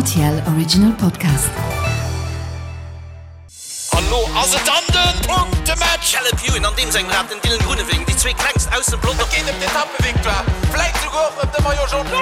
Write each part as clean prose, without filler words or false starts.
RTL Original Podcast. An lo ass et dann den Punktematch! Caleb Ewan an deem sengem Rad, den Dylan Groenewegen, déi zwee klengst aus dem Pelotong. Et geet ëm d'Etappevictoire, vläit souguer och ëm de Maillot Jaune.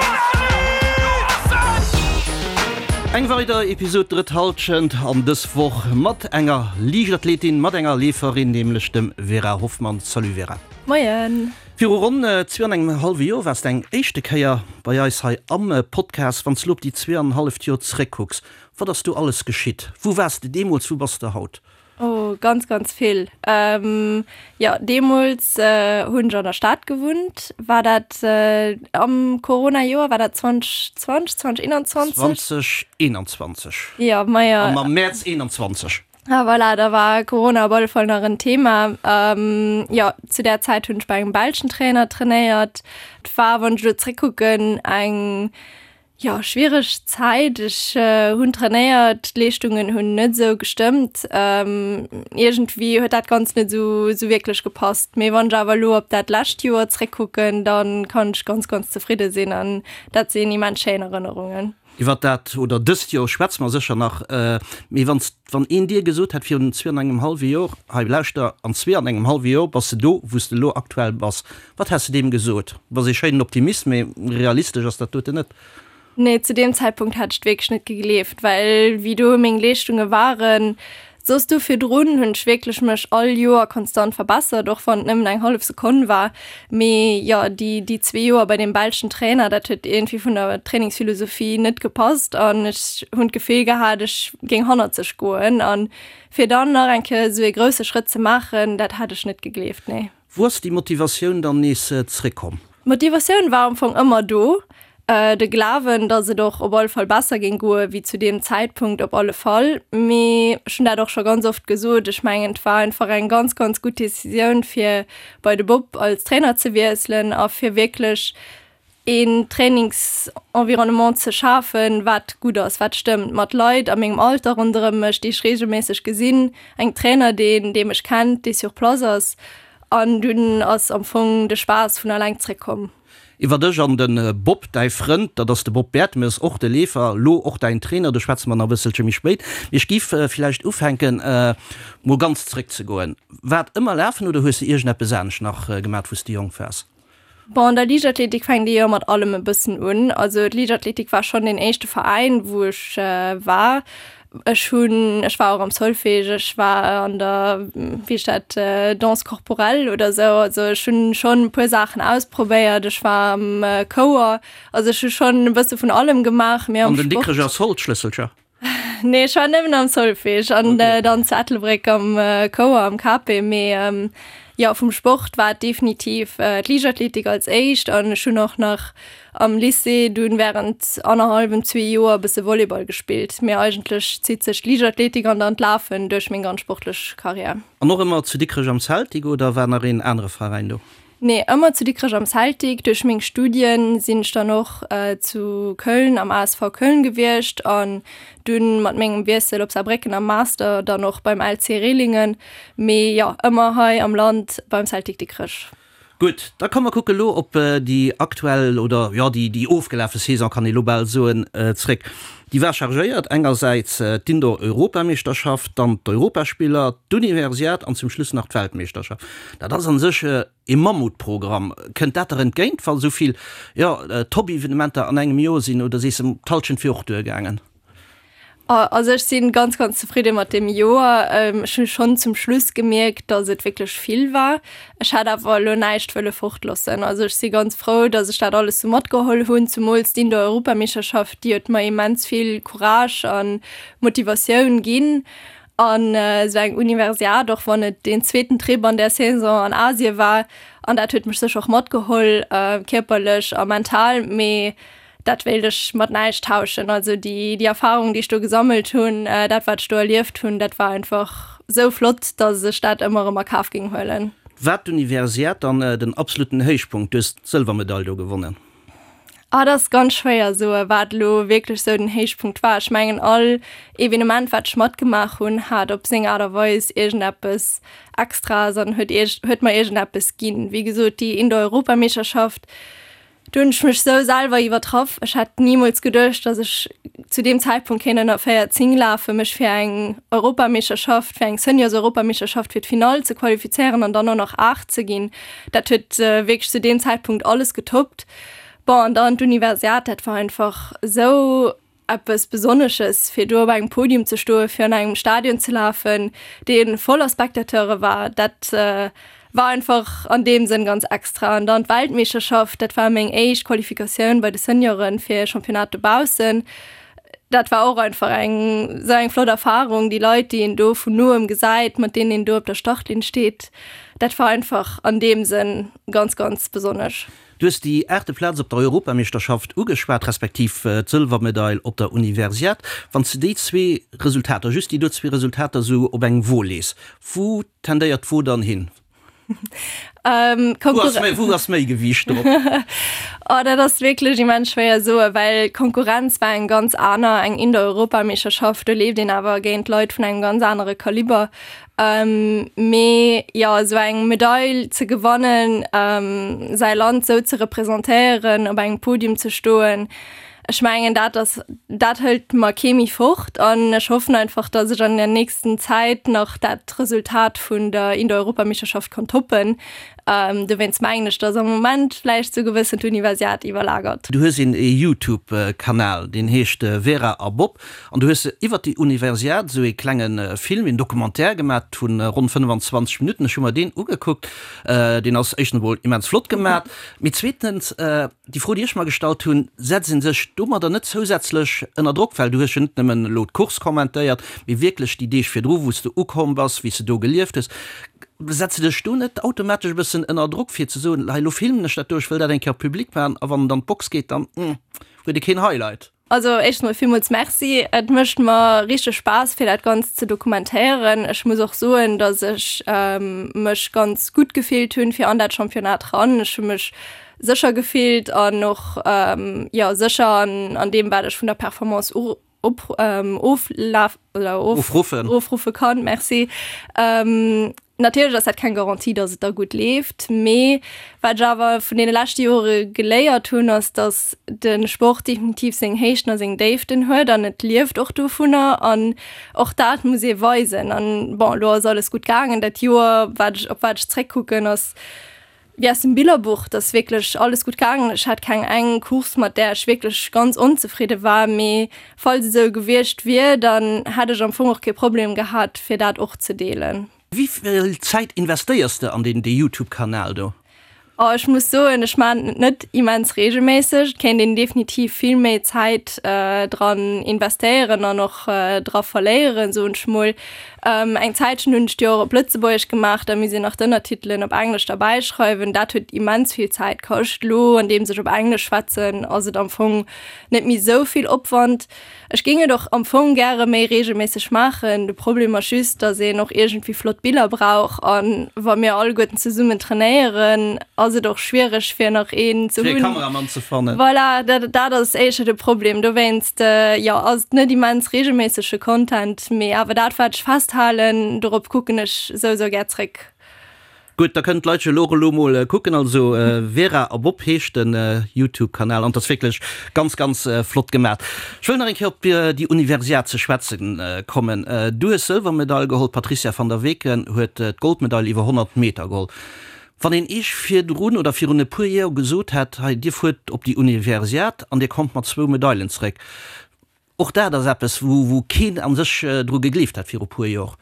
Eng weider Episod Drëtt Hallschent an dës Woch mat enger Liichtathletin, mat enger Leeferin, nämlech dem Vera Hoffmann. Salut Vera. Moien. Viru ronn zwee an engem hallwe Joer waars de eng éischte Kéier bei eis hei am Podcast. Wann s de elo op déi zweeanenhalleft Joer zeréckkucks, wat ass do alles geschitt? Wou waars de deemools, wou bass de haut? Oh, ganz, ganz vill. Jo, deemools hunn ech an der Stad gewunnt. War dat am Corona-Joer? War dat 2020, 2021? 2021. Jo, majo. Am Mäerz 21. Ah voilà, da war Corona op alle Fall nach en Thema. Ähm, jo, zu där Zäit hunn ech bei engem belschen Trainer trainéiert. Et war, wann ech elo zréckkucken, eng, jo, schwiereg Zäit. Ech hunn trainéiert, d'Leeschtungen hunn net esou gestëmmt. Ähm, iergendwéi huet dat Ganzt net esou, esou wierklech gepasst. Mee wann ech awer elo op dat lescht Joer zréckkucken, da kann ech ganz, ganz zefridde sinn an dat sinn immens schéin Erënnerungen. Iwwer dat oder dëst Joer schwätze mer sécher nach. Mee wann wann een dir gesot hätt virun zwee an engem hallwe Joer, hei lauschter, an zwee an engem hallwe Joer bass de do, wou s de elo aktuell bass, wat häss de deem gesot? Du bass ee schéinen Optimist, mee realistesch ass dat doten net. Nee, zu deem Zäitpunkt hätt ech et wierklech net gegleeft, well wéi do meng Leeschtunge waren, Soss do virdrun hunn ech wierklech mech all Joer konstant verbessert, och wann et nëmmen eng hallef Sekonn war. Mee jo, déi, déi zwee Joer bei deem belschen Trainer, dat huet iergendwéi vun der Trainingsphilosophie net gepasst an ech hunn d'Gefill gehat, ech géing hannerzeg goen. An fir dann nach eng Kéier esou ee grousse Schrëtt ze maachen, dat hat ech net gegleeft, nee. Wou ass déi Motivatioun dann nees zréckkomm? D'Motivatioun war am Fong ëmmer do, de Glawen, datt et och op alle Fall besser géing goe wéi zu deem Zäitpunkt op alle Fall. Mee ech hunn dat och scho ganz oft gesot, ech mengen et war einfach eng ganz, ganz gutt Decisioun fir bei de Bob als Trainer ze wiesselen a fir wierklech een Trainingsenvironnement ze schafen, wat gutt ass, wat stëmmt, mat Leit a mengem Alter ronderëm mech, déi ech reegelméisseg gesinn, engem Trainer, deen, dee mech kennt, dee sur place ass. An dunn ass am Fong de Spaass vun alleng zréckkomm. Iwwer dech an de Bob, däi Frënd, dat ass de Bob Bertemes, och de Leefer, lo och däin Trainer, do schwätze mer nach e bësselche méi spéit. Mee ech giff villäicht ufänken, mol ganz zréckzegoen. War et ëmmer Lafen oder hues de iergendeppes anescht nach gemat, wou s de jonk waars? Bon, an der Liichtathletik fänkt ee jo mat allem e bëssen un. Also d'Liichtathletik war schonn deen éischte Veräin, wou ech war. Ech hunn, ech war och am Solfège, ech war an der, wéi heescht dat, Danse corporelle oder esou. Also ech hunn schonn e puer Saachen ausprobéiert. Ech war am Chouer. Also ech hu schonn e bësse vun allem gemaach, mee am Sport. An den Dikrecher Solschlësselcher? Nee, ech war nëmmen am Solfège an okay. dann zu Ettelbréck am äh, Chouer am KP. Mee ähm, ja, vum Sport war et definitiv äh, d'Liichtathletik als éischt an ech hunn och nach am Lycée dunn während annerhallwem zwee Joer e bësse Volleyball gespillt. Mee eigentlech zitt sech d'Liichtathletik an dann d'Lafen duerch meng ganz sportlech Karriär. An och ëmmer zu Dikrech am Celtic oder war nach een anere Veräin do? Nee, ëmmer zu Dikrech am Celtic. Duerch meng Studien sinn ech dann och zu Köln am ASV Köln gewiescht an dunn mat mengem Wiessel op Saarbrécken am Master dann och beim LC Rehlingen. Mee jo, ëmmer hei am Land beim Celtic Dikrech. Gutt, da komm mer kucke lo op déi aktuell oder jo déi déi ofgelafe Saison kann ee lo bal soen zréck. Déi war chargéiert, engersäits d'Indoor-Europameeschterschaft, dann d'Europaspiller, d'Universiad an zum Schluss nach d'Weltmeeschterschaft. Dat ass an sech ee Mammutprogramm. Kënnt dat der entgéint, wa sou vill, jo, Top-Evenementer an engem Joer sinn, oder sees de, d'Hallschent wier och duergaangen? Also ech si ganz, ganz zefridde mat deem Joer. Ech hu schonn zum Schluss gemierkt, datt et wierklech vill war. Ech hätt awer elo näischt wëlle fortloossen. Also ech si ganz frou, datt ech dat alles sou matgeholl hunn, zemools d'Indoor-Europameeschterschaft, déi huet mer immens vill Courage a Motivatioun ginn. An esou eng Universiad, och wann et deen zweeten Trip an där Saison an Asie war, an dat huet mech sécher och matgeholl, kierperlech a mental, mee dat wéilt ech mat näischt tauschen. Also déi, déi Erfahrung, déi ech do gesammelt hunn, dat wat ech do erlieft hunn, dat war einfach esou flott, datt ech dat ëmmer erëm a Kaf géing huelen. War d'Universiad dann den absolutten Héichpunkt? Du hues d'Sëlwermedail do gewonnen. Ah, dat ass ganz schwéier soe wat elo wierklech sou den Héichpunkt war. Ech mengen all Evenement wat ech matgemaach hunn, hat op seng Aart a Weis iergendeppes Extraes an huet ierg huet mer iergendeppes ginn. Wéi gesot déi Indoor-Europameeschterschaft, Do hunn ech mech sou selwer iwwertraff. Ech hätt nimools geduecht, dass ech zu deem Zäitpunkt kéint ënner 14 lafen, mech fir eng Europameeschterschaft, fir eng Seniors-Europameeschterschaft fir d'Finall ze qualifizéieren an dann och nach 8 ze ginn. Dat huet wierklech zu deem Zäitpunkt alles getoppt. Bon, an dann d'Universiad, dat war einfach sou eppes Besonnesches, fir do op engem Podium ze stoen, fir an engem Stadion ze lafen, dee voller Spectateure war, dat war einfach an deem Sënn ganz extra. An dann d'Weltmeeschterschaft, dat war meng éischt Qualifikatioun bei de Senioren fir e Championnat dobaussen. Dat war och einfach eng esou eng flott Erfarung, déi Leit, déi een do vun noem gesäit, mat deenen een do op der Startlinn steet, dat war einfach an deem Sënn ganz, ganz besonnesch. Du hues déi aachte Plaz op der Europameeschterschaft ugeschwat, respektiv d'Sëlwermedail op der Universiad. Wann s de déi zwee Resultater, just déi do zwee Resultater esou op eng Wo lees, wou tendéiert d'Wo dann hin? Wou ass méi Gewiicht drop? Oh, dat ass wierklech immens schwéier soen, well d'Konkurrenz war eng ganz aner, eng Indoor-Europameeschterschaft, do leeft een awer géint Leit vun engem ganz anere Kaliber. Mee jo, esou eng Medail ze gewannen, säi Land esou ze representéieren, op engem Podium ze stoen, ech mengen dat ass, dat hëlt mer kee méi fort. An ech hoffen einfach, datt ech an der nächsten Zäit nach dat Resultat vun der Indoor-Europameeschterschaft kann toppen. Dowéinst mengen ech, datt am Moment vläicht esou gewëssen d'Universiad iwwerlagert. Du hues een Youtube-Kanal, deen heescht Vera a Bob. An du hues iwwert déi Universiad esou ee klenge Film, een Documentaire gemat vu ronn 25 Minutten. Ech hu mer deen ugekuckt. Deen ass éischtens emol immens flott gemat. Mee zweetens, déi Fro, déi ech mer gestallt hunn, Setzt ee sech domadder net zousätzlech ënner Drock? Well du hues jo net nëmmen elo d'Course kommentéiert, mee wierklech déi Deeg virdru, wou s de ukomm bass, wéi s de do gelieft hues. Setzt de dech do net automatesch e bëssen ënner Drock, fir ze soen, Hei, elo filmen ech dat do, ech wëll dat eng Kéier public maachen, a wann en dann d'Box geet, dann huet e keen Highlight? Also éischtens mol villmools Merci. Et mécht mer richteg Spaass fir dat Ganzt ze dokumentéieren. Ech muss och soen, datt ech mech ganz gutt gefillt hunn fir an dat Championnat ran. Ech hu mech sécher gefillt an och jo sécher an an deem wat ech vun der Performance op oflaf oder ofruffen ofruffe kann. Merci. Natierlech ass dat keng Garantie, datt et da gutt leeft, mee wat ech awer vun deene leschte Jore geléiert hunn, ass, datt de Sport definitiv seng Héichten a seng Déiften huet an et lieft och dovunner an och dat muss ee weisen. An bon, elo ass alles gutt gaangen dat Joer. Wat ech, op wat ech zréckkucken, ass wéi aus dem Billerbuch, et ass wierklech alles gutt gaangen. Ech hat keng eng Course, mat där ech wierklech ganz onzefridde war, mee falls et esou gewiescht wier, dann hätt ech am Fong och kee Problem gehat, fir dat och ze deelen. Wéi vill Zäit investéiers de an deen Youtube-Kanal do? Oh, ech muss soen, ech maachen et net immens reegelméisseg. Et kéint een definitiv vill méi Zäit dran investéieren an och dra verléieren, soen ech mol. Eng Zäitchen hunn ech déi och op Lëtzebuergesch gemaach, da misst een nach d'Ënnertitelen op Englesch derbäi schreiwen. Dat huet immens vill Zäit kascht. Elo, andeems ech op Englesch schwätzen, ass et am Fong net méi esou vill Opwand. Ech géing et och am Fong gäre méi reegelméisseg maachen. De Problem ass just, dass een och iergendwéi flott Biller brauch. A wa mir alleguerten zesummen trainéieren, ass et och schwiereg fir nach een ze hunn. Fir e Kameramann ze fannen. Voilà, dat, dat ass éischer de Problem. Dowéinst, jo, ass et net immens reegelméissege Content, mee awer dat wat ech festhalen, dorop kucken ech souwisou gär zréck. Gutt, da kënnen d'Leit jo elo och elo mol kucken. Also Vera a Bob heescht den Youtube Kanal an et ass wierklech ganz ganz flott gemat. Ech wëll nach eng Kéier op déi Universiad ze schwätzen kommen. Du hues Sëlwermedail geholl, d'Patrizia van der Weken huet d'Goldmedail iwwer 100 Meter geholl. Wann een Iech virdrun oder virun e puer Joer gesot hätt, hei dir fuert op déi Universiad an dir kommt mat zwou Medailen zeréck, Och dat ass eppes, wou keen a sech dru gegleeft hat viru puer Jor.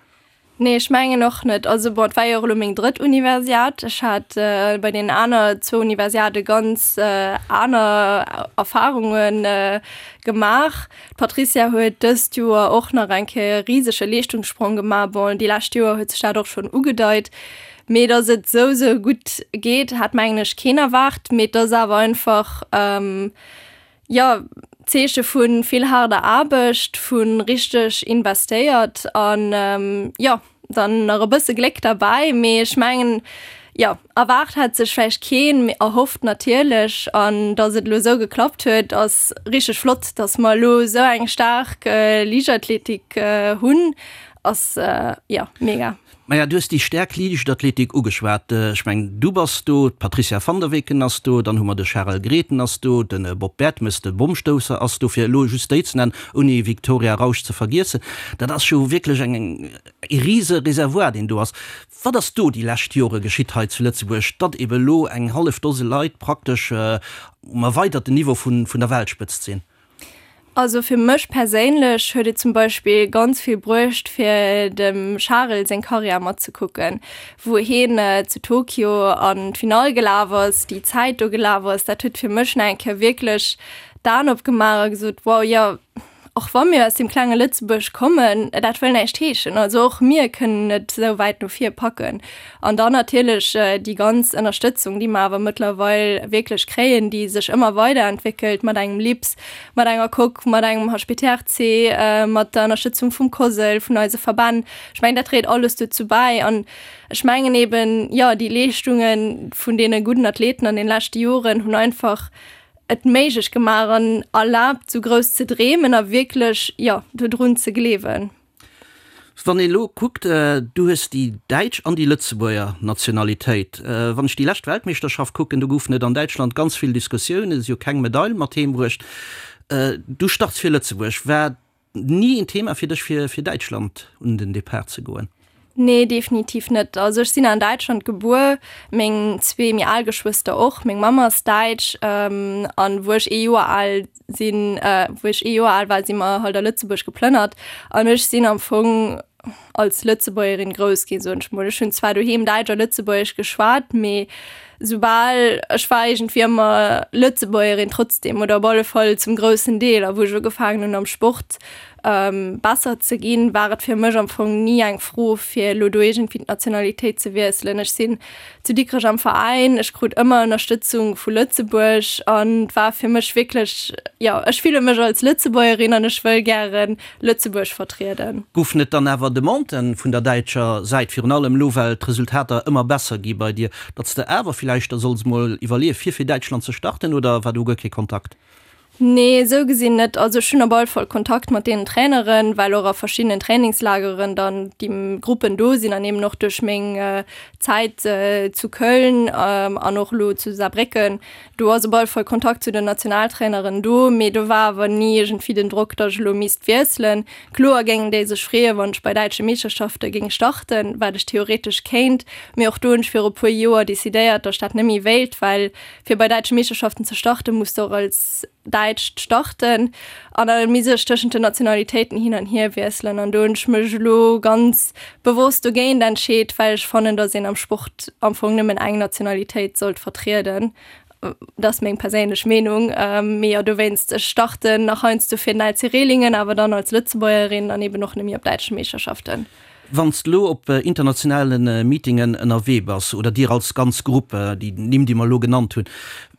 Nee, ech mengen och net. Also bon, et war jo och elo meng drëtt Universiad. Ech hat bei deenen aner zwou Universiade ganz aner Erfarunge gemaach. D'Patricia huet dëst Joer och nach eng Kéier e risege Leeschtungssprong gemaach. Bon, déi lescht Joer huet sech dat och schonn ugedeit. Mee datt et esou, esou gutt geet, hat mengen ech keen erwaart. Mee et ass awer einfach, Jo, Zeeche vu vill haarder Aarbecht, vu richteg investéiert an jo, dann nach e bësse Gléck derbäi. Mee ech mengen, jo, erwaart hat sech vläicht keen, mee erhofft natierlech. An datt et elo esou geklappt huet, ass richteg flott, datt mer elo esou eng staark Liichtathletik hunn. Ass, jo, mega. Maja, du hues déi staark Liichtathletik ugeschwat. Ech mengen, du bass do, d'Patricia van der Weken ass do, dann hu mer de Charel Grethen ass do, de Bob Bertemes, de Bommstousser ass do, fir elo just déi ze nennen, ouni Victoria Rausch ze vergiessen. Dat ass jo wierklech eng, e rise Reservoir, deen do ass. Wat ass do déi lescht Jore geschitt hei zu Lëtzebuerg, datt ebe elo eng hallef Dose Leit praktesch um erweiderten Niveau vun der Weltspëtzt sinn? Also fir mech perséinlech huet et zum Beispill ganz vill bruecht fir dem Charel seng Karriär matzekucken, wou hien zu Tokio an d'Finall gelaf ass, déi Zäit do gelaf ass. Dat huet fir mech nach eng Kéier wierklech d'Aen opgemaach a gesot, wow, jo, och wa mir aus deem klenge Lëtzebuerg kommen, dat wëll näischt heeschen. Also och mir kënnen et esou wäit no vir packen. An dann natierlech déi ganz Ënnerstëtzung, déi mer awer mëttlerweil wierklech kréien, déi sech ëmmer weiderentwéckelt mat engem LIPS, mat enger Coque, mat engem HPTRC, mat der Ënnerstëtzung vum COSL, vun eise Verbänn. Ech mengen, dat dréit alles dozou bäi. An ech mengen eeben, jo, déi Leeschtunge vun deene gudden Athleten an den leschte Joren hunn einfach et méiglech gemaach an erlaabt, esou grouss ze dreemen a wierklech, jo, dodrun ze gleewen. Wann een elo kuckt, du hues déi däitsch an déi Lëtzebuerger Nationalitéit. Wann ech déi lescht Weltmeeschterschaft kucken, do goufen et an Däitschland ganz vill Diskussiounen, si hu keng Medail mat heem bruecht. Du starts fir Lëtzebuerg. War ni en Thema fir dech fir fir Däitschland un den Depart ze goen? Nee, definitiv net. Also ech sinn an Däitschland gebuer, meng zwee méi al Geschwëster och. Meng Mamm ass däitsch an wou ech ee Joer al sinn, wou ech ee Joer al war, si mer halt a Lëtzebuerg geplënnert an ech sinn am Fong als Lëtzebuergerin grouss ginn, soen ech mol. Ech hunn zwar doheem Däitsch a Lëtzebuergesch geschwat, mee soubal ech war iergendwéi ëmmer Lëtzebuergerin trotzdem oder op alle Fall zum groussen Deel. A wou ech ugefaangen hunn am Sport besser ze ginn, war et fir mech am Fong ni eng Fro fir elo do iergendwéi d'Nationalitéit ze wiesselen. Ech sinn zu Dikrech am Veräin, ech krut ëmmer Ënnerstëtzung vu Lëtzebuerg an et war fir mech wierklech, jo, ech fille mech als Lëtzebuergerin an ech wëll gären Lëtzebuerg vertrieden. Goufen et dann awer Demanden vun der däitscher Säit, virun allem elo well d'Resultater ëmmer besser gi bei dir, datt s de awer villäicht der solls mol iwwerleeë fir fir Däitschland ze starten oder war do guer kee Kontakt? Nee, esou gesinn net. Also ech hunn op alle Fall Kontakt mat deenen Traineren, well och a verschiddenen Trainingslageren dann déi Gruppen do sinn an eben och duerch meng Zäit zu Köln an och elo zu Saarbrécken, do ass op alle Fall Kontakt zu den Nationaltraineren do. Mee do war awer ni iergendwéi den Drock, datt ech elo misst wiesselen. Kloer géingen déi sech freeën, wann ech bei däitsche Meeschterschafte géing starten, wat ech theoretesch kéint. Mee och do hunn ech viru puer Joer decidéiert, datt ech dat net méi wéilt, well Fir bei däitsche Meeschterschaften ze starten, muss de och als Däitscht starten an da misst ech tëschent den Nationalitéiten hin an hier wiesselen. An do hunn ech mech elo ganz bewosst dogéint entscheet, well ech fannen, datt een am Sport am Fong nëmmen eng Nationalitéit sollt vertrieden. Dat ass meng perséinlech Meenung. Mee jo, dowéinst, ech starten nach heiansdo fir den LC Rehlingen, awer dann als Lëtzebuergerin an eben och nëmme op däitsche Meeschterschaften. Wann s de elo op internationale Meetingen ënnerwee bass, oder dir als ganz Grupp, déi Nimm, déi mer elo genannt hunn,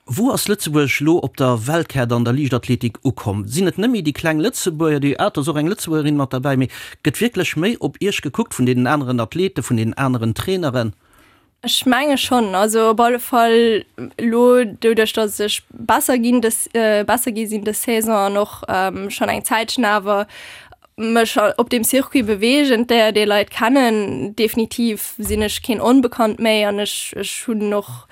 wou ass Lëtzebuerg elo op der Weltkaart an der Liichtathletik ukomm? Sinn et net méi déi kleng Lëtzebuerger, déi, ah, et ass och eng Lëtzebuergerin mat derbäi, mee gëtt wierklech méi op Iech gekuckt vun deenen aneren Athleten, vun deenen aneren Traineren? Ech menge schonn, also op alle Fall elo doduerch, datt ech besser ginn dës, besser gi sinn dës Saison an och schonn eng Zäitchen awer mech op deem Circuit beweegen, déier déi Leit kennen. Definitiv sinn ech keen Onbekannt méi an ech ech hunn och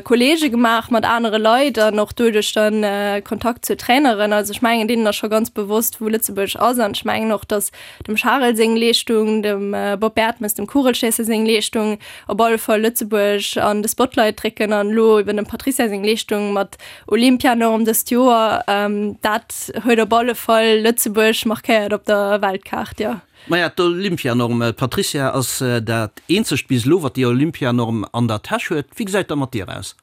Kolleege gemaach mat anere Leit an och doduerch dann Kontakt zu Traineren. Also ech mengen deenen ass scho ganz bewosst wou Lëtzebuerg ass an ech mengen och, datt dem Charel seng Leeschtung, dem Bob Bertemes, dem Kugelschéisser seng Leeschtung, op alle Fall Lëtzebuerg an de Spotlight drécken an elo eben dem Patricia seng Leeschtung mat Olympianorm dëst Joer, dat huet op alle Fall Lëtzebuerg markéiert op der Weltkaart, jo. Maja, d'Olympianorm, d'Patricia ass dat eenzegt bis elo, wat déi Olympianorm an der Täsch huet. Wéi gesäit dat mat dir aus?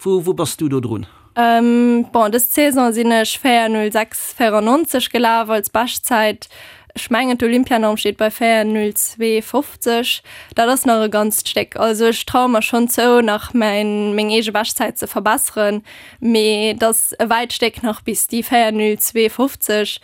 Wou wou bass du do drun? Bon, dës Saison sinn ech 4:06,94 gelaf als Beschtzäit. Ech mengen d'Olympianorm steet bei 4:02,50. Dat ass nach e ganzt Stéck. Also ech traue mer schonn zou, nach mäin meng eege Beschtzäit ze verbesseren, mee et ass e wäit Stéck nach bis déi 4:02,50.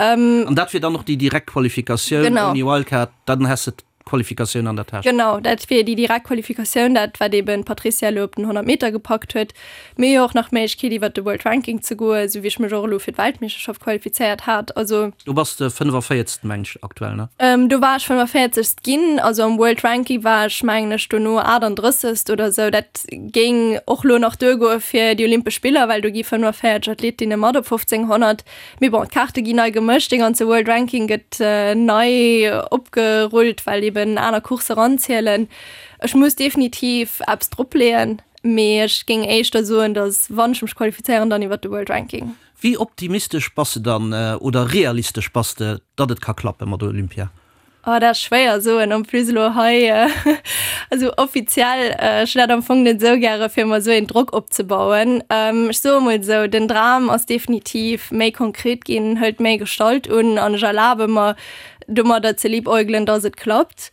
An dat wier dann och déi direkt Qualifikatioun ouni Wildcard? Dann häss de. Qualifikatioun an der Täsch. Genau, dat wier déi direkt Qualifikatioun, dat wat eben d'Patricia elo op den 100 Meter gepackt huet. Mir hu jo och nach d'Méiglechkeet iwwert de World Ranking ze goen, esou wéi ech mech och elo fir d'Weltmeeschterschaft qualifizéiert hat. Also. Do bass de 45. Meng ech aktuell, ne? Do war ech 45. Ginn, also am World Ranking war ech mengen ech dono 38. Oder esou. Dat géing och elo nach duergoe fir déi Olympesch Spiller, well do gi 45 Athletinne mat op 1500. Mee bon, d'Kaarte ginn nei gemëscht, dee ganze World Ranking gëtt nei opgerullt, well eben aner Coursse eranzielen. Ech muss definitiv eppes dropleeën, mee ech géing éischter soen, datt wann ech mech qualifizéieren, dann iwwert de World Ranking. Wéi optimistesch bass de dann, oder realistesch bass de, datt et ka klappe mat Olympia? Oh, dat ass schwéier soen, en plus elo hei esou offiziell. Ech hunn dat am Fong net esou gäre fir mer esou een Drock opzebauen. Ech soe mol esou, den Dram ass definitiv méi konkret ginn, hëlt méi Gestalt un an ech erlabe mer domadder ze liebäugelen, dass et klappt.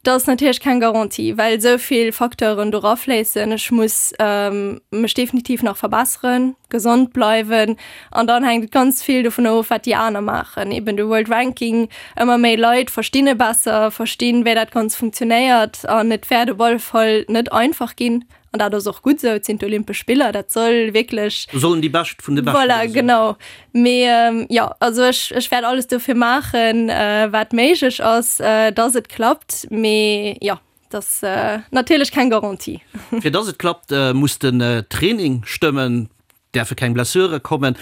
Dat ass natierlech keng Garantie, well esou vill Facteuren do rafléissen. Ech muss mech definitiv nach verbesseren, gesond bleiwen an dann hänkt et ganz vill dovun of, wat déi aner maachen. Eben de World Ranking, ëmmer méi Leit verstinn e besser, verstinn, wéi dat Ganzt funktionéiert an et wäert op alle Fall net einfach ginn. An dat ass och gutt esou, et sinn d'Olympesch Spiller, dat soll wierklech. Do sollen déi Bescht vun de Beschten do sinn. Voilà, genau. Mee jo, also ech, ech wäert alles dofir maachen, wat méiglech ass, dass et klappt. Mee jo, dat ass natierlech keng Garantie. Fir dass et klappt, muss den Training stëmmen. Däerfe keng Blessure kommen.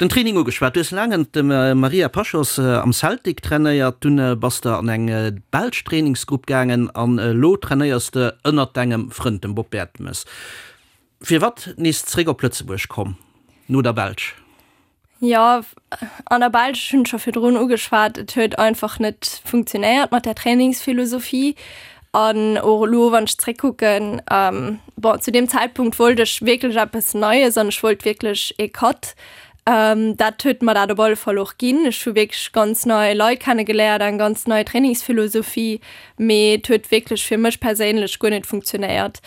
Den Training ugeschwat, du hues laang ënnert dem Maria Pachos am Celtic trainéiert, dunn bass de an eng belsch Trainingsgrupp gaangen an elo trainéiers de ënnert dengem Frënd, dem Bob Bertemes. Firwat nees zréck op Lëtzebuerg komm no der Belsch? Jo, an der Belsch, ech hunn et scho virdrun ugeschwat, et huet einfach net funktionéiert mat där Trainingsphilosophie. An och elo, wann ech zréckkucken, bon, zu deem Zäitpunkt wollt ech wierklech eppes Neies an ech wollt wierklech ee Cut. Dat huet mer dat op alle Fall och ginn. Ech hu wierklech ganz nei Leit kennegeléiert, eng ganz nei Trainingsphilosophie, mee et huet wierklech fir mech perséinlech guer net funktionéiert.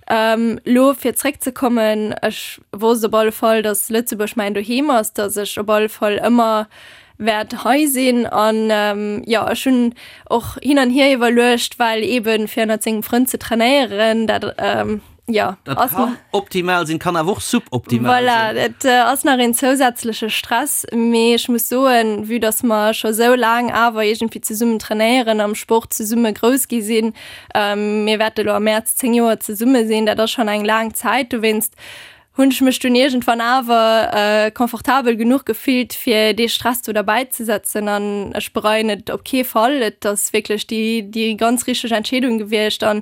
Elo fir zréckzekommen, ech wosst op alle Fall, datt Lëtzebuerg mäin Doheem ass, datt ech op alle Fall ëmmer wäert hei sinn. An jo, ech hunn och hin an hier iwwerluecht, well eeben fir ënnert sengem Frënd ze trainéieren, dat jo Dat ass kann optimal sinn, kann awer och suboptimal sinn. Voilà, dat ass nach een zousätzleche Stress. Mee ech muss soen, vue datt mer scho sou laang awer iergendwéi zesummen trainéieren, am Sport zesumme grouss gi sinn, Mir wäerte lo am Mäerz 10 Joer zesumme sinn, dat ass schonn eng laang Zäit. Dowéinst hunn ech mech dunn iergendwann awer confortabel genuch gefillt, fir dee Stress do derbäi ze setzen an ech bereien et op kee Fall. Et ass wierklech déi, déi ganz richteg Entscheedung gewiescht an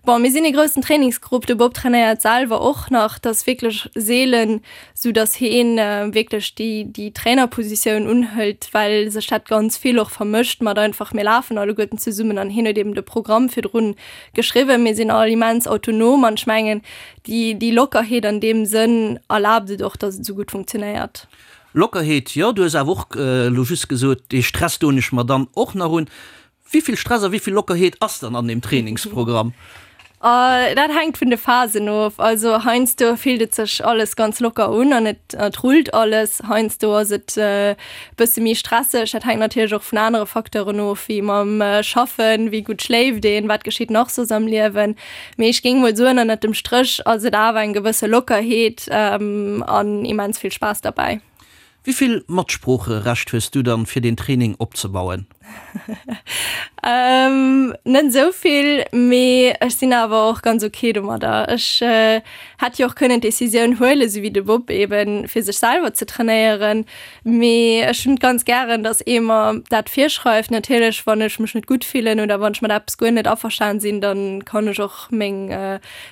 bon, mir sinn ee groussen Trainingsgrupp, de Bob trainéiert selwer och nach, dat ass wierklech seelen, sou dass heen wierklech déi, déi Trainerpositioun unhëlt, well sech dat ganz vill och vermëscht mat einfach mir lafen alleguerten zesummen an hien huet eben de Programm virdrun geschriwwen. Mir sinn all immens autonom an ech mengen, déi, déi Lockerheet an deem Sënn erlaabt et och, dass et esou gutt funktionéiert. Lockerheet, jo, du hues awer och elo just gesot, dee Stress doen ech mer dann och nach un. Wéi vill Stress a wéi vill Lockerheet ass dann an deem Trainingsprogramm? Dat hänkt vun de Phasen of. Also heiansdo fillt et sech alles ganz locker un an et et rullt alles. Heiansdo ass et e bësse méi stresseg. Dat hänkt natierlech och vun anere Facteuren of, wéi mam Schaffen, wéi gutt schléift een, wat geschitt nach soss am Liewen. Mee ech géing mol soen, ënnert dem Stréch ass et awer eng gewësse Lockerheet an immens vill Spaass derbäi. Wéi vill Matsproocherecht hues du dann fir deen Training opzebauen? Net esou vill, mee ech sinn awer och ganz ok domadder. Ech hätt jo och kënnen d'Decisioun huelen, esou wéi de Bob eben, fir sech selwer ze trainéieren, mee ech hunn et ganz gären, dass ee mer dat virschreift. Natierlech, wann ech mech net gutt fillen oder wann ech mat eppes guer net averstan sinn, dann kann ech och meng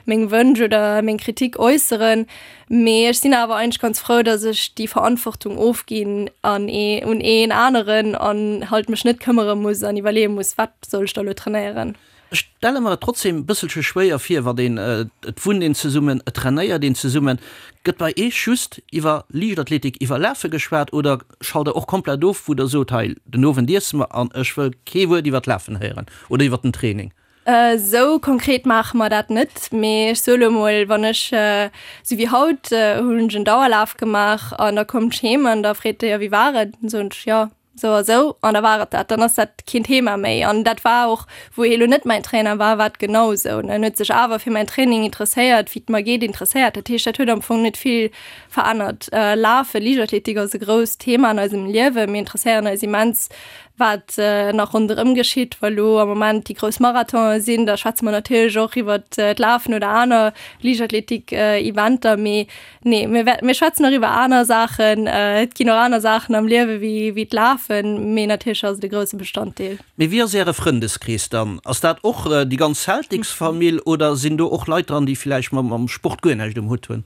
meng Wënsch oder meng Kritik äusseren. Mee ech sinn awer eigentlech ganz frou, dass ech déi Verantwortung ofginn an ee un een aneren an halt mech net këmmere muss an iwwerleeë muss, wat soll ech da lo trainéieren. Ech stelle mer et trotzdem e bësselche schwéier vir, wann een, et wunnt een zesummen, et trainéiert een zesummen. Gëtt bei Eech just iwwer Liichtathletik, iwwer Lafe geschwat oder schalt der och komplett of, wou der sot, hei den Owend iesse mer an ech wëll kee Wuert iwwer d'Lafen héieren oder iwwer den Training? Esou konkret maache mer dat net, mee ech soe lo mol, wann ech, esou wéi haut, hunn ech en Dauerlaf gemaach an da kommt ech heem an da freet de, jo wéi war et? Dann soen ech, jo. Sou a sou, an da war et dat. Dann ass dat keen Thema méi. An dat war och, wou hie lo net mäin Trainer war, war et genau sou. En huet sech awer fir mäin Training interesséiert, wéi et mer geet, interesséiert. Dat heescht, dat huet am Fong net vill verännert. Lafen, Liichtathletik ass e grousst Thema an eisem Liewen. Mir interesséieren eis immens, wat nach ronderëm geschitt. Wa lo am Moment déi grouss Marathonen sinn, da schwätze mer natierlech och iwwert d'Lafen oder aner Liichtathletik-Eventer. Mee Nee, mir, mir schwätzen och iwwer aner Saachen. Et ginn och aner Saachen am Liewe wéi, wéi d'Lafen, mee natierlech ass et e grousse Bestanddeel. Mee wéi ass Äre Frëndeskrees dann? Ass dat och déi ganz Celtics-Famill oder sinn do och Leit dran, déi villäicht mam Sport guer näischt um Hutt hunn?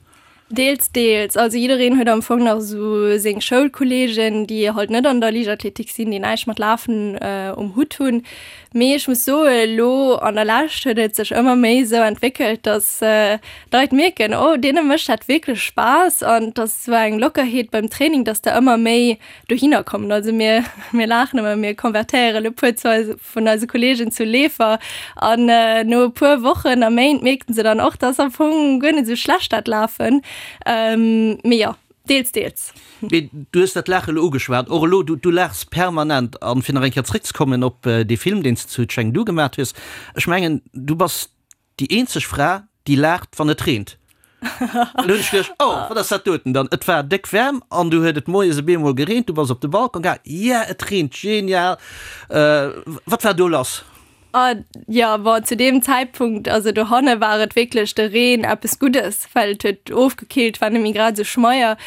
Deels, deels. Also jiddereen huet am Fong nach esou seng Schoulkolleegen, déi halt net an der Liichtathletik sinn, déi näischt mat Lafen um Hutt hunn. Mee ech muss soen, elo an der Lescht huet et sech ëmmer méi esou entwéckelt, dass d'Leit mierken, oh deene mécht dat wierklech Spaass an et ass esou eng Lockerheet beim Training, dass der ëmmer méi dohinner kommen. Also mir, mir laachen ëmmer, mir konvertéieren e puer zu eise, vun eise Kolleegen zu Leefer an no e puer Wochen a Méint mierken se dann och, dass am Fong guer net esou schlecht dat Lafen. Mee jo. Deels, deels. Mee du hues dat Laache elo ugeschwat. Och elo, du, du laachs permanent. An fir nach eng Kéier zréckzekommen op dee Film, deen s de zu Chengdu gemaat hues, ech mengen, du bass déi eenzeg Fra, déi laacht, wann et reent. An du hunn ech geduecht, oh, wat ass dat doten dann? Et war déck waarm an du huet et moies op eemol gereent, du bass op de Balcon gaang, yeah, et reent, genial. Wat war do lass? Ah jo, bon, zu deem Zäitpunkt, also dohanne war et wierklech de Reen eppes Guddes, well et huet ofgekillt, war net méi grad esou schmeier.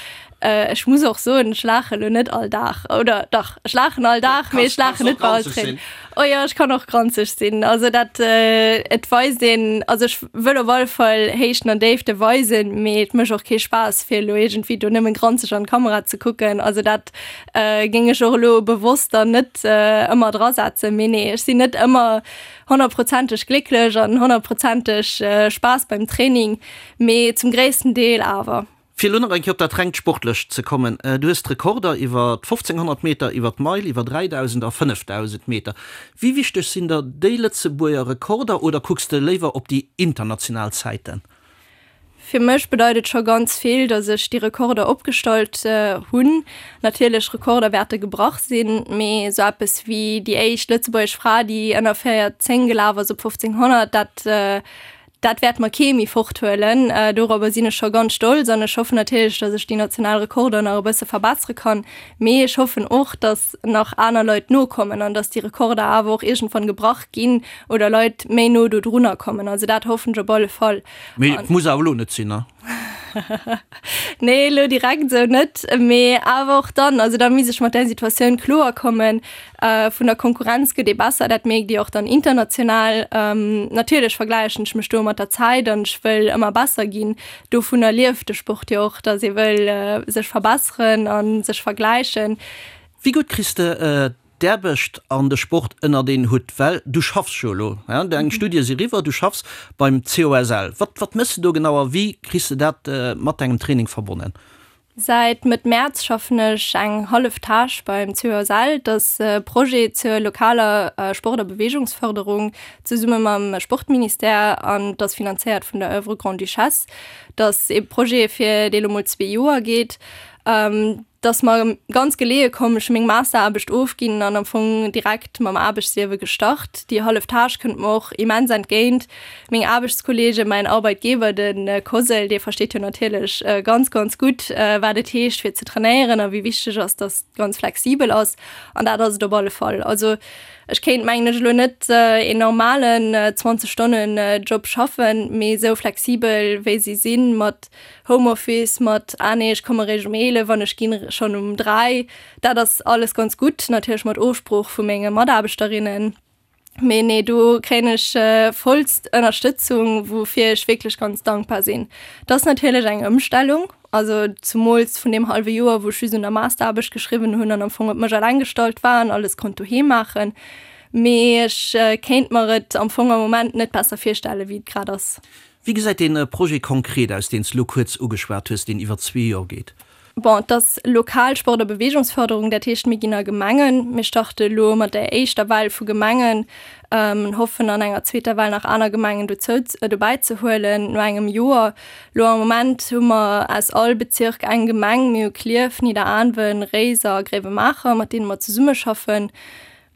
Ech muss och soen, ech laache lo net all Dag, oder dach, ech laachen all Dag, mee ech laachen net bei all Tréin. Oh jo, ech kann och granzeg sinn. Also dat, et weist een, also ech wëll op alle Fall Héichten an Déifte weisen, mee et mécht och kee Spaass, fir elo iergendwéi do nëmmen granzeg an d'Kamera ze kucken. Also dat Géing ech och elo bewosst dann net ëmmer drasetzen. Mee nee, ech sinn net ëmmer honnertprozenteg glécklech an honnertprozenteg Spaass beim Training, mee zum gréissten Deel awer. Fir elo nach eng Kéier op dat rengt Sportlecht ze kommen, Du hues d'Rekorder iwwer 1500 Meter, iwwer d'Meil, iwwer 3000 a 5000 Meter. Wéi wichteg sinn der déi Lëtzebuerger Rekorder oder kucks de léiwer op déi international Zäiten? Fir mech bedeit et scho ganz vill, datt ech déi Rekorder opgestallt hunn. Natierlech, Rekorder wäerte gebrach sinn, mee esou eppes wéi déi éischt lëtzebuergesch Fra, déi ënner 4,10 gelaf ass op 1500, dat, dat wäert mer kee méi forthuelen. Dorobber sinn ech scho ganz stolz an ech hoffen natierlech, datt ech déi national Rekorder nach e bësse verbessere kann. Mee ech hoffen och, datt nach aner Leit nokommen an datt déi Rekorder awer och iergendwann gebrach ginn oder Leit méi no dodrunner kommen. Also dat hoffen ech op alle Fall. Mee et muss awer elo net sinn, ne? Nee, elo direkt esou net, mee awer och dann, also da misst ech mat där Situatioun kloer kommen. Vun der Konkurrenz gëtt ee besser, dat mierkt Dir och dann international. Natierlech vergläichen ech mech do mat der Zäit an ech wëll ëmmer besser ginn. Dovunner lieft de Sport jo och, datt ee wëll sech verbesseren a sech vergläichen. Wéi gutt kriss de d'Aarbecht an de Sport ënnert een Hutt? Well du schaffs jo elo, deng Studie si riwwer, du schaffs beim COSL. Wat, wat méchs de do genau a wéi kriss de dat mat dengem Training verbonnen? Säit Mëtt Mäerz schaffen ech eng hallef Tâche beim COSL. Dat ass e Projet zur lokaler Sport a Beweegungsfërderung zesumme mam Sportministère an et ass finanzéiert vun der Oeuvre Grande-Duchesse. Dat ass ee Projet fir dee lo mol zwee Joer geet. 't ass mer ganz geleeë komm, ech hu meng Masteraarbecht ofginn an am Fong direkt mam Aarbechtsliewe gestart. Déi hallef Tâche kënnt mer och immens entgéint. Meng Aarbechtskolleegen, mäin Arbeitgeber, de COSL, dee versteet jo natierlech ganz, ganz gutt, wat et heescht fir ze trainéieren a wéi wichteg ass, dass et ganz flexibel ass. An dat ass et op alle Fall. Also ech kéint, mengen ech, elo net een normalen 20 Stonnen Job schaffen, mee esou flexibel wéi si sinn, mat Homeoffice mat, ah nee, ech komme réischt um 11 an ech ginn schonn um 3, dat ass alles ganz gutt, natierlech mat Ofsprooch vu menge Mataarbechterinnen. Mee nee, do kréien ech vollst Ënnerstëtzung, woufir ech wierklech ganz dankbar sinn. Et ass natierlech eng Ëmstellung, also zumools vun deem hallwe Joer, wou ech just un der Masteraarbecht geschriwwen hunn an am Fong op mech eleng gestallt war an alles konnt doheem maachen. Mee ech kéint mer et am Fong am Moment net besser virstellen, wéi et grad ass. Wéi gesäit dee Projet konkret aus, deen s de elo kuerz ugeschwat hues, deen iwwer zwee Joer geet? Bon, et ass lokal Sport a Beweegungsförderung, dat heescht, mir ginn a Gemengen. Mir starte elo mat der éischter Well vu Gemengen an hoffen an enger zweeter Well nach aner Gemengen dozou, dobäi ze huelen no engem Joer. Elo am Moment hu mer aus all Bezirk eng Gemeng. Mir hu Klierf, Nidderaanwen, Réiser a Gréiwemaacher, mat deene mer zesummeschaffen.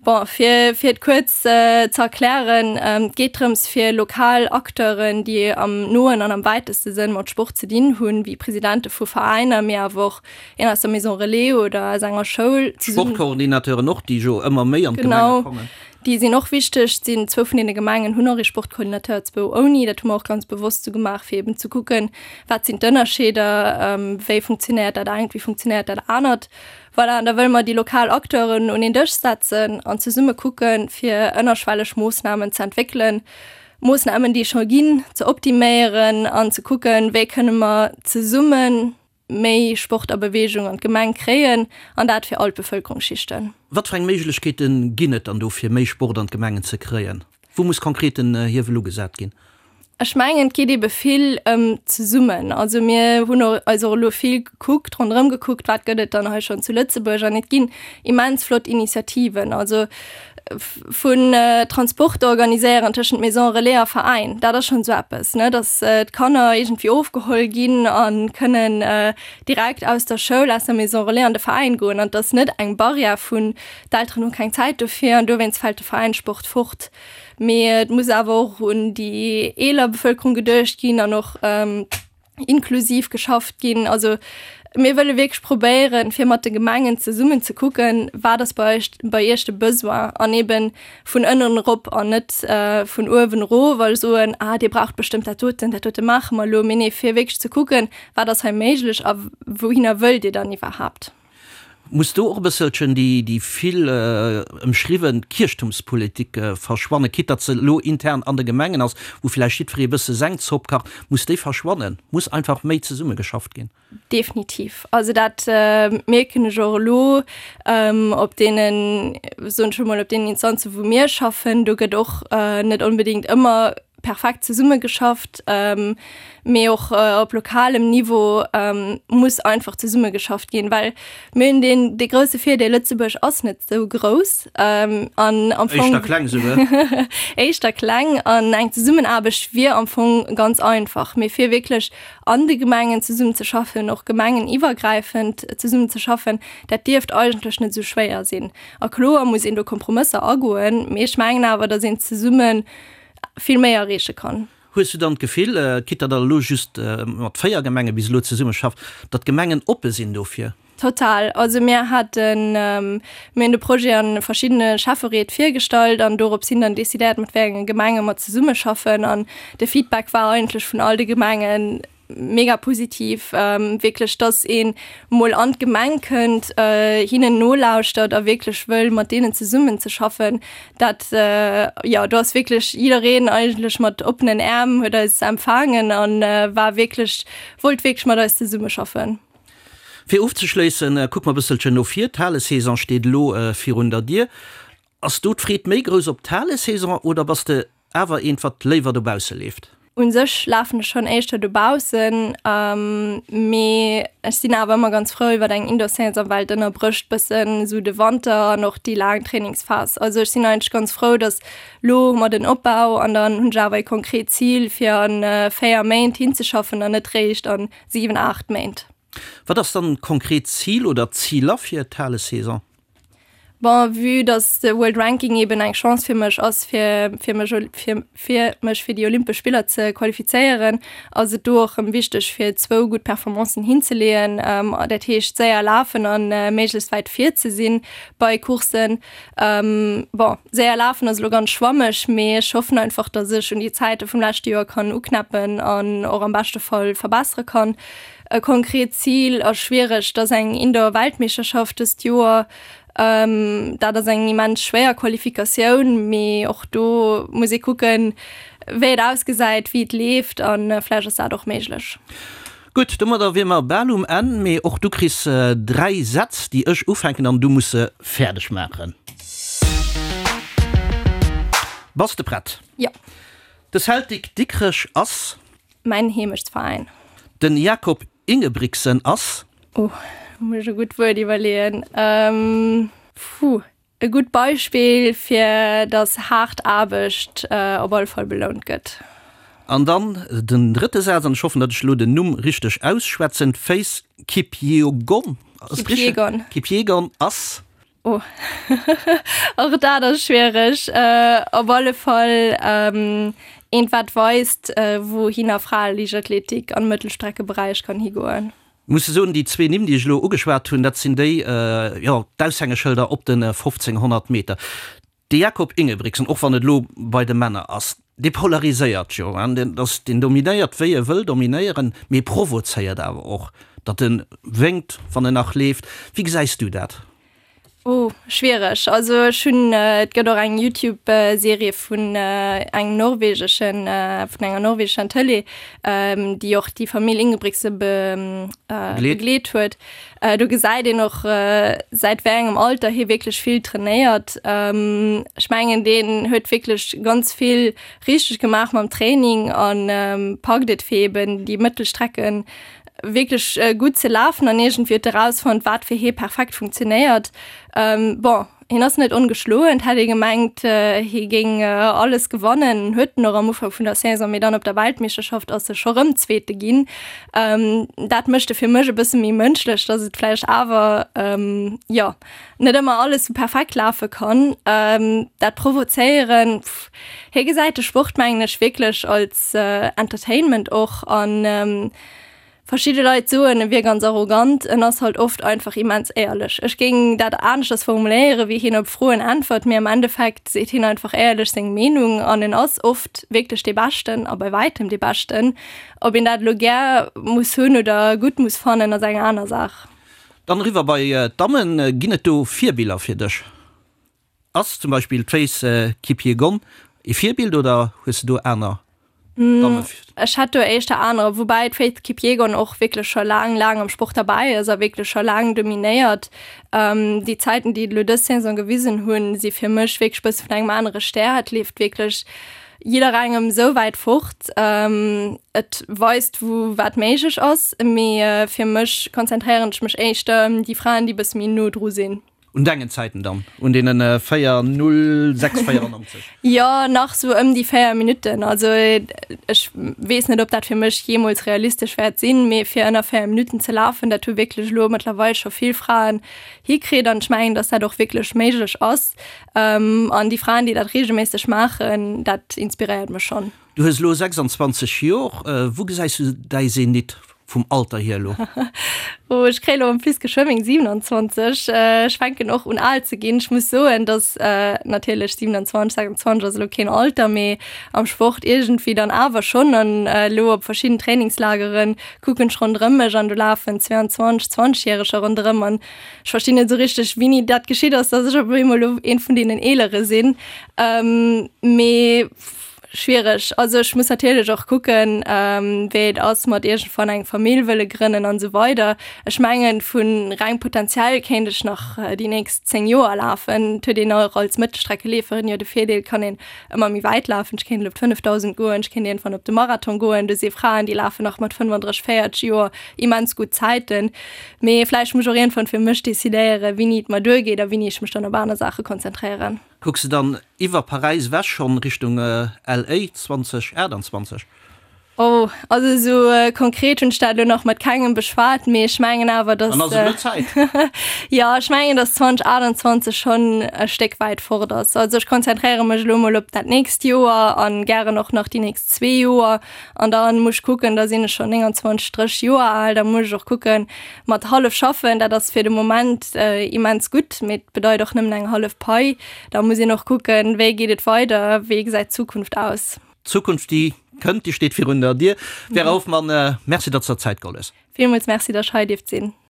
Bon, fir, fir et kuerz ze erklären, Et geet drëms, fir lokal Acteuren, déi am noen an am wäiteste Sënn mat Sport ze dinn hunn, wéi Presidente vu Veräiner, mee awer och een aus der Maison Relais oder aus enger Schoul, zesummen. Sportcoordinateuren och, déi jo ëmmer méi an d'Gemenge kommen. Genau, déi sinn och wichteg. Et sinn zwou vun deene Gemengen hunn och ee Sportcoordinateur, zwou ouni. Dat hu mer och ganz bewosst esou gemaach, fir eben ze kucken, wat sinn d'Ënnerscheeder, wéi funktionéiert dat engt, wéi funktionéiert dat anert. Voilà, an da wëlle mer déi lokal Acteuren un een Dësch setzen an zesumme kucken, fir ënnerschwelleg Moossnamen ze entwéckelen, Moossnamen, déi scho ginn, ze optiméieren an ze kucken, wéi kënne mer zesumme méi Sport a Beweegung an d'Gemeng kréien, an dat fir all d'Bevëlkerungsschichten. Wat fir eng Méiglechkeete ginn et dann do, fir méi Sport an d'Gemengen ze kréien? Wou muss konkret den Hiewel ugesat ginn? Ech mengen, et geet ebe vill ëm zesummen. Also mir hunn och eis och elo vill gekuckt, ronderëm gekuckt, wat gëtt et dann hei schonn zu Lëtzebuerg an et ginn immens flott Initiativen. Also vun Transport organiséieren tëschent Maison Relais a Veräin, dat ass schonn esou eppes, ne, datt d'Kanner iergendwéi ofgeholl ginn a kënnen direkt aus der Schoul, aus der Maison Relais an de Veräin goen an et ass net eng Barrière vun d'Elteren hu keng Zäit dofir an dowéinst fält de Veräinssport fort. Mee et muss awer och un déi eeler Bevëlkerung geduecht ginn an och inklusiv geschafft ginn. Also mir wëlle wierklech probéieren, fir mat de Gemengen zesummen ze kucken, wat ass bei eis, bei iech de Besoin an eeben vun ënnen erop an net vun uewen erof a soen, ah dir braucht bestëmmt dat doten, dat dote maache mer elo. Mee nee, fir wierklech ze kucken, wat ass hei méiglech a wouhinner wëllt dir dann iwwerhaapt. Muss do och e bësselchen déi vill ëmschriwwen Kierchtumspolitik verschwannen, quitte datt se elo intern an de Gemengen ass, wou vläicht jiddweree e bësse seng Zopp kacht? Muss déi verschwannen? Muss einfach méi zesummegeschafft ginn? Definitiv. Also dat mierken ech och elo op deenen, soen ech emol, op deenen Instanzen, wou mir schaffen. Do gëtt och net onbedéngt ëmmer perfekt zesummegeschafft, mee och op lokalem Niveau muss einfach zesummegeschafft ginn, well mir hunn deen dee grousse Virdeel, Lëtzebuerg ass net esou grouss an am Fong éischter kleng esouguer éischter kleng an eng Zesummenaarbecht wier am Fong ganz einfach. Mee fir wierklech an de Gemengen zesummenzeschaffen, och gemengeniwwergräifend zesummenzeschaffen, dat dierft eigentlech net esou schwéier sinn. A kloer muss een do Kompromësser agoen, mee ech mengen awer, datt een zesummen vill méi erreeche kann. Hues du dann d'Gefill, quitte datt der elo just mat 4 Gemenge bis elo zesummeschafft, datt d'Gemengen oppe sinn dofir? Total. Also mir haten, mir hunn de Projet a verschiddene Schäffereet virgestallt an dorops hin dann decidéiert, mat wéi enge Gemenge mer zesummeschaffen. An de Feedback war eigentlech vun all de Gemengen, Mega positiv, wierklech, dass een mol an d'Gemeng kënnt, hinnen nolauschtert a wierklech wëll mat deenen zesummen ze schaffen. Dat, jo, do ass wierklech jiddereen eigentlech mat oppenen Äerm huet eis empfaangen a war wierklech, wollt wierklech mat eis zesummeschaffen. Fir ofzeschléissen, kucke mer e bësselchen no vir. D'Halesaison steet elo virun der Dier. Ass do d'Freed méi grouss op d'Halesaison oder bass de awer eent wat léiwer dobausse leeft? Un sech lafen ech schonn éischter dobaussen, mee ech sinn awer ëmmer ganz frou iwwer eng Indoor-Saison, well et ënnerbrécht bëssen esou de Wanter an och déi laang Trainingsphas. Also ech sinn eigentlech ganz frou, datt lo hu mer den Opbau an dann hunn ech awer e konkret Zil fir a 4 Méint hinzeschaffen an net réischt a 7, 8 Méint. Wat ass dann d'konkret Zil oder d'Ziler fir d'Halesaison? Bon, vue dass de World Ranking eben eng Chance fir mech ass, fir fir mech fir fir mech fir déi Olympesch Spiller ze qualifizéieren, ass et do och rëm wichteg fir zwou gutt Performancen hinzeleeën. Dat heescht séier lafen an méiglechst wäit vir ze sinn bei Courssen. Bon, séier lafen ass elo ganz schwammeg, mee ech hoffen einfach, dass ech un déi Zäite vum leschte Joer kann uknäppen an och am beschte Fall verbessere kann. E konkret Zil ass schwiereg, et ass eng Indoor-Weltmeeschterschaft dëst Joer. Dat ass eng immens schwéier Qualifikatioun, mee och do muss ee kucken, wéi et ausgesäit, wéi et leeft a vläicht ass dat och méiglech. Gutt, domadder wier mer bal um Enn, mee och du kriss 3 Sätz, déi ech ufänken an du muss se fäerdeg maachen. Bass de prett? Jo. De Celtic Dikrech ass. Mäin Heemechtsveräin. Den Jakob Ingebrigtsen ass. Oh, muss ech e gutt Wuert iwwerleeën. Puh, e gutt Beispill fir datt haart Aarbecht op alle Fall belount gëtt. An dann den drëtte Saz, an ech hoffen, datt ech elo den Numm richteg ausschwätzen, Faith Kipyegon, ass et richteg? Kipyegon. Kipyegon ass. Oh, och dat ass schwiereg. Op alle Fall eent wat weist, wouhinner Fraeliichtathletik am Mëttelstreckeberäich kann higoen. Muss soen, déi zwee Nimm, déi ech elo ugeschwat hunn, dat sinn déi, jo, d'Aushängeschëlder op de 1500 Meter. De Jakob Ingebrigtsen, och wann et elo bei de Männer ass, dee polariséiert jo, deen ass, deen dominéiert, wéi e wëll dominéieren, mee provozéiert awer och, datt e wénkt, wann en nach leeft. Wéi gesäis du dat? Oh, schwiereg. Also ech hunn, et gëtt och eng Youtube-Serie vun engem norwegeschen, vun enger norwegescher Tëlee, déi och déi Famill Ingebrigtsen begleet huet. Do gesäit een och, säit wéi engem Alter hie wierklech vill trainéiert. Ech mengen, deen huet wierklech ganz vill richteg gemaach mam Training a packt et fir eben déi Mëttelstrecken wierklech gutt ze lafen an iergendwéi huet erausfonnt, wat fir hie perfekt funktionéiert. Bon, hien ass net ongeschloen, et hätt ee gemengt, hie géing alles gewannen, huet en och am Ufank vun der Saison, mee dann op der Weltmeeschterschaft ass e scho rëm Zweete ginn. Dat mécht e fir mech e bësse méi mënschlech, datt et vläicht awer, jo, net ëmmer alles sou perfekt lafe kann. Dat Provozéieren, pff, hie gesäit de Sport, mengen ech, wierklech als Entertainment och an verschidde Leit soen, e wier ganz arrogant. En ass halt oft einfach immens éierlech. Ech géing dat aneschters formuléieren, wéi hien op Froen äntwert, mee am Endeffekt seet hien einfach éierlech seng Meenung an en ass oft wierklech dee Beschten a bei wäitem dee Beschten. Ob een dat elo gär muss hunn oder gutt muss fannen, ass eng aner Saach. Dann eriwwer bei d'Dammen, Ginn et do Virbiller fir dech? Ass zum Beispill d'Faith Kipyegon ee Virbild oder hues de do aner Damme? Ech hätt do éischter anerer, woubäi d'Faith Kipyegon och wierklech scho laang, laang am Sport derbäi ass a wierklech scho laang dominéiert. Déi Zäiten, déi et elo dës Saison gewisen hunn, si fir mech wierklech bësse vun engem anere Stär. Et leeft wierklech jidderengem esou wäit fort. Et weist, wou wat méiglech ass, mee fir mech konzentréieren ech mech éischter ëm déi Fraen, déi bësse méi no dru sinn. Un dengen Zäiten dann, un deenen 4, 0, 6, 94? Jo, nach sou ëm déi 4 Minutten. Also ech weess net, ob dat fir mech jeemools realistesch wäert sinn, mee fir ënner 4 Minutten ze lafen, dat hu wierklech elo mëttlerweil scho vill Fraen hikritt an ech mengen, datt dat och wierklech méiglech ass. An déi Fraen, déi dat reegelméisseg maachen, dat inspiréiert mech schonn. Du hues elo 26 Jor, wou gesäis du däi Zenit vum Alter hier elo? Oh, ech kréie lo en plus geschwë meng 27. Ech fänken och un al ze ginn. Ech muss soen, datt natierlech 27, 26 ass elo keen Alter, mee am Sport iergendwéi dann awer schonn. An elo op verschidden Trainingslagere kucken ech ronderëm mech an do lafen 22, 20 Järeger ronderëm an Ech verstinn net esou richteg, wéini dat geschitt ass, dass ech op eemol elo een vun deenen Eelere sinn. Mee schwiereg. Also ech muss natierlech och kucken, wéi et ass mat iergendwann eng Famill wëlle grënnen an esou weider. Ech mengen, vu reng potenziell kéint ech nach déi nächst 10 Joer lafen. Et huet een och als Mëttelstreckeleeferin jo de Virdeel, et kann een ëmmer méi wäit lafen. Ech kéint elo op d'Fënnefdausend goen, ech kéint iergendwann op de Marathon goen. Do si Fraen, déi lafen nach mat 35, 40 Joer immens gutt Zäiten. Mee vläicht muss ech och iergendwann fir mech decidéieren, wéini et mer duergeet a wéini ech mech dann op aner Saache konzentréieren. Kucks de dann iwwer Paräis ewech schonn Richtung LA 2028? Oh, also esou konkret hunn ech dat elo nach mat kengem beschwat, mee ech mengen awer, dass. Dann ass et elo Zäit. Jo, ech mengen, dass 2028 schonn e Stéck wäit fort ass. Also ech konzentréiere mech elo mol op dat nächst Joer a gären och nach déi nächst zwee Joer. An da muss ech kucken, da sinn ech schonn 29, 30 Joer al, da muss ech och kucken, mat hallef schaffen, dat ass fir de Moment immens gutt, mee et bedeit och nëmmen eng hallef Pai. Da muss een och kucken, wéi geet et weider, wéi gesäit d'Zukunft aus. D'Zukunft, déi kënnt, déi steet virun der Dier. Vera Hoffmann, Merci, datt s de der Zäit geholl hues. Villmools Merci, datt ech hei dierft sinn.